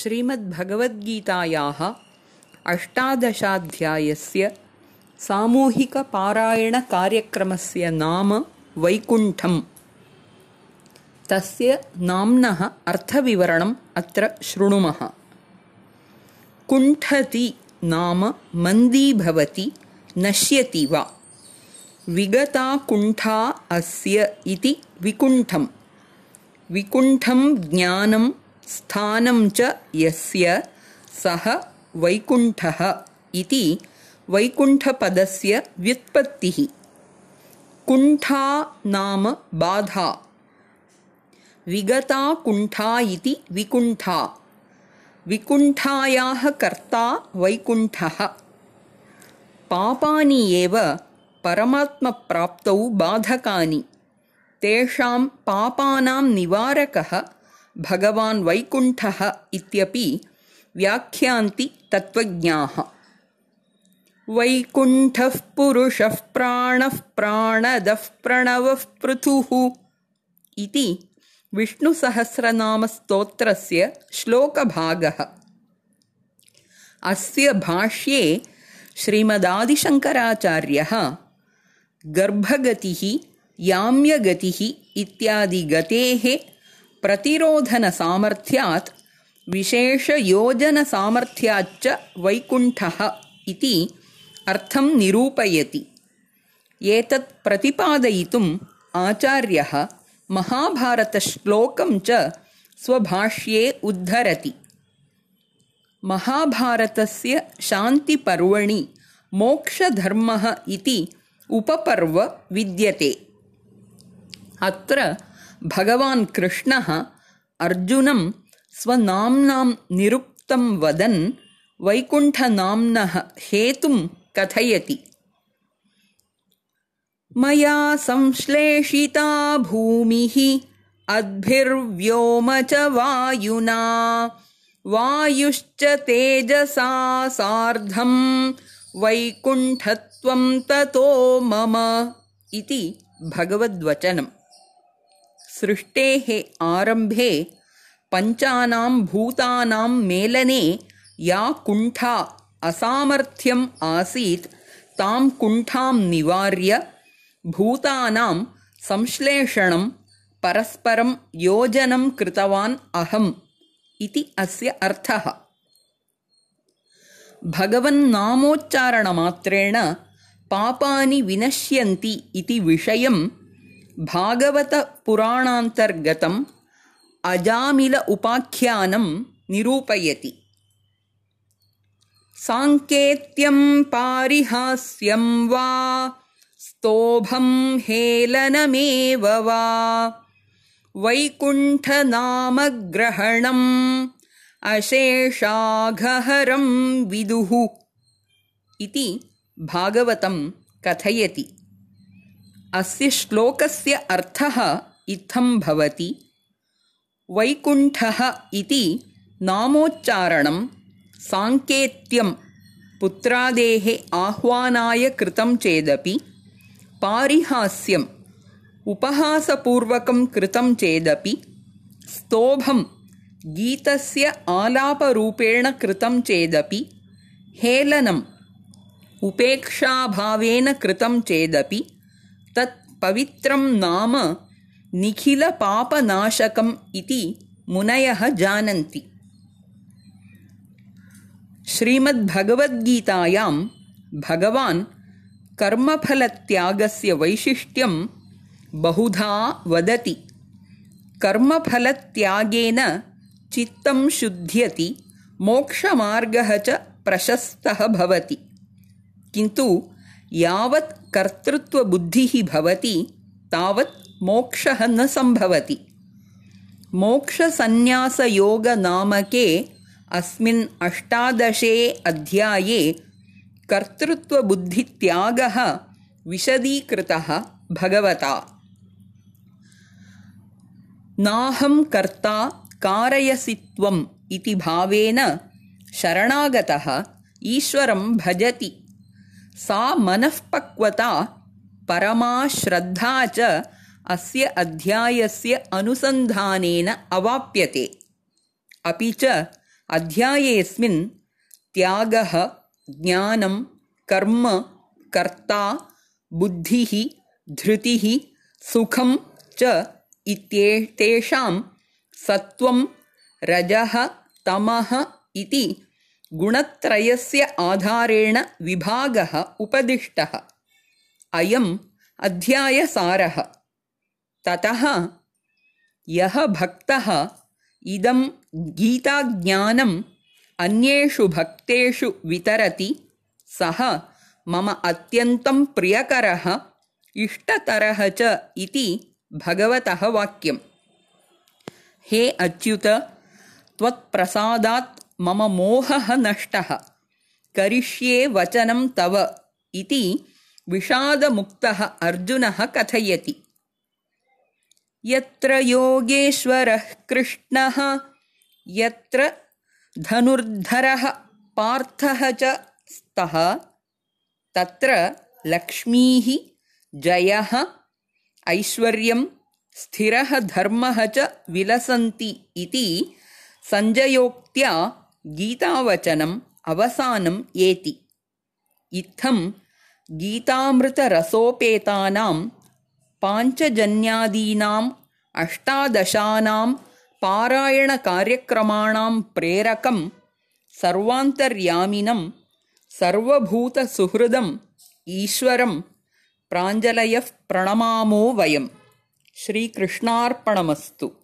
श्रीमद्भगवद्गीतायाः अष्टादशाध्यायस्य सामूहिकपारायणकार्यक्रमस्य नाम वैकुण्ठम्। तस्य नाम्नः अर्थविवरणम् अत्र शृणुमः। कुण्ठति नाम मन्दीभवति, नश्यति वा। विगता कुण्ठा अस्य इति विकुण्ठम्। विकुण्ठं ज्ञानं स्थानं च यस्य सः वैकुण्ठः इति वैकुण्ठपदस्य व्युत्पत्तिः। कुण्ठा नाम बाधा। विगता कुण्ठा इति विकुण्ठा। विकुण्ठायाः कर्ता वैकुण्ठः। पापानि एव परमात्मप्राप्तौ बाधकानि। तेषां पापानां निवारकः भगवान् वैकुण्ठः इत्यपि व्याख्यान्ति तत्त्वज्ञाः। वैकुण्ठः पुरुषः प्राणः प्राणदः प्रणवः पृथुः इति विष्णुसहस्रनामस्तोत्रस्य श्लोकभागः। अस्य भाष्ये श्रीमदादिशङ्कराचार्यः गर्भगतिः, याम्यगतिः इत्यादि गतेः प्रतिरोधनसामर्थ्यात् विशेषयोजनसामर्थ्याच्च वैकुण्ठः इति अर्थं निरूपयति। एतत् प्रतिपादयितुम् आचार्यः महाभारतश्लोकं च स्वभाष्ये उद्धरति। महाभारतस्य शान्तिपर्वणि मोक्षधर्मः इति उपपर्व विद्यते। अत्र भगवान् कृष्णः अर्जुनं स्वनाम्नां निरुक्तं वदन् वैकुण्ठनाम्नः हेतुं कथयति। मया संश्लेषिता भूमिः अद्भिर्व्योम च वायुना, वायुश्च तेजसा सार्धं वैकुण्ठत्वं ततो मम इति भगवद्वचनम्। सृष्टेः आरम्भे पञ्चानां भूतानां मेलने या कुण्ठा असामर्थ्यम् आसीत् तां कुण्ठां निवार्य भूतानां संश्लेषणं परस्परं योजनं कृतवान् अहम् इति अस्य अर्थः। भगवन्नामोच्चारणमात्रेण पापानि विनश्यन्ति इति विषयं भागवतपुराणान्तर्गतम् अजामिल उपाख्यानं निरूपयति। साङ्केत्यं पारिहास्यं वा स्तोभं हेलनमेव वा वैकुण्ठनामग्रहणम् अशेषाघहरं विदुः इति भागवतं कथयति। अस्य श्लोकस्य अर्थः इत्थं भवति। वैकुण्ठः इति नामोच्चारणं साङ्केत्यं पुत्रादेः आह्वानाय कृतं चेदपि, पारिहास्यम् उपहासपूर्वकं कृतं चेदपि, स्तोभं गीतस्य आलापरूपेण कृतं चेदपि, हेलनम् उपेक्षाभावेन कृतं चेदपि तत् पवित्रं नाम निखिलपापनाशकम् इति मुनयः जानन्ति। श्रीमद्भगवद्गीतायां भगवान् कर्मफलत्यागस्य वैशिष्ट्यं बहुधा वदति। कर्मफलत्यागेन चित्तं शुध्यति, मोक्षमार्गः च प्रशस्तः भवति। किन्तु यावत् कर्तृत्वबुद्धिः भवति तावत् मोक्षः न सम्भवति। मोक्षसन्न्यासयोगनामके अस्मिन् अष्टादशे अध्याये कर्तृत्वबुद्धित्यागः विशदीकृतः भगवता। नाहं कर्ता कारयसि त्वम् इति भावेन शरणागतः ईश्वरं भजति। सा मनःपक्वता परमा श्रद्धा च अस्य अध्यायस्य अनुसन्धानेन अवाप्यते। अपि च अध्यायेऽस्मिन् त्यागः, ज्ञानं, कर्म, कर्ता, बुद्धिः, धृतिः, सुखं च इत्येतेषां सत्त्वं, रजः, तमः इति गुणत्रयस्य आधारेण विभागः उपदिष्टः। अयम् अध्यायसारः। ततः यः भक्तः इदं गीताज्ञानम् अन्येषु भक्तेषु वितरति सः मम अत्यन्तं प्रियकरः इष्टतरः च इति भगवतः वाक्यम्। हे अच्युत, त्वत्प्रसादात् मम मोहः नष्टः, करिष्ये वचनं तव इति विषादमुक्तः अर्जुनः कथयति। यत्र योगेश्वरः कृष्णः, यत्र धनुर्धरः पार्थः च स्तः, तत्र लक्ष्मीः, जयः, ऐश्वर्यं, स्थिरः धर्मः च विलसन्ति इति सञ्जयोक्त्या गीतावचनम् अवसानं एति। इत्थं गीतामृतरसोपेतानां पाञ्चजन्यादीनाम् अष्टादशानां पारायणकार्यक्रमाणां प्रेरकं सर्वान्तर्यामिनं सर्वभूतसुहृदम् ईश्वरं प्राञ्जलयः प्रणमामो वयम्। श्रीकृष्णार्पणमस्तु।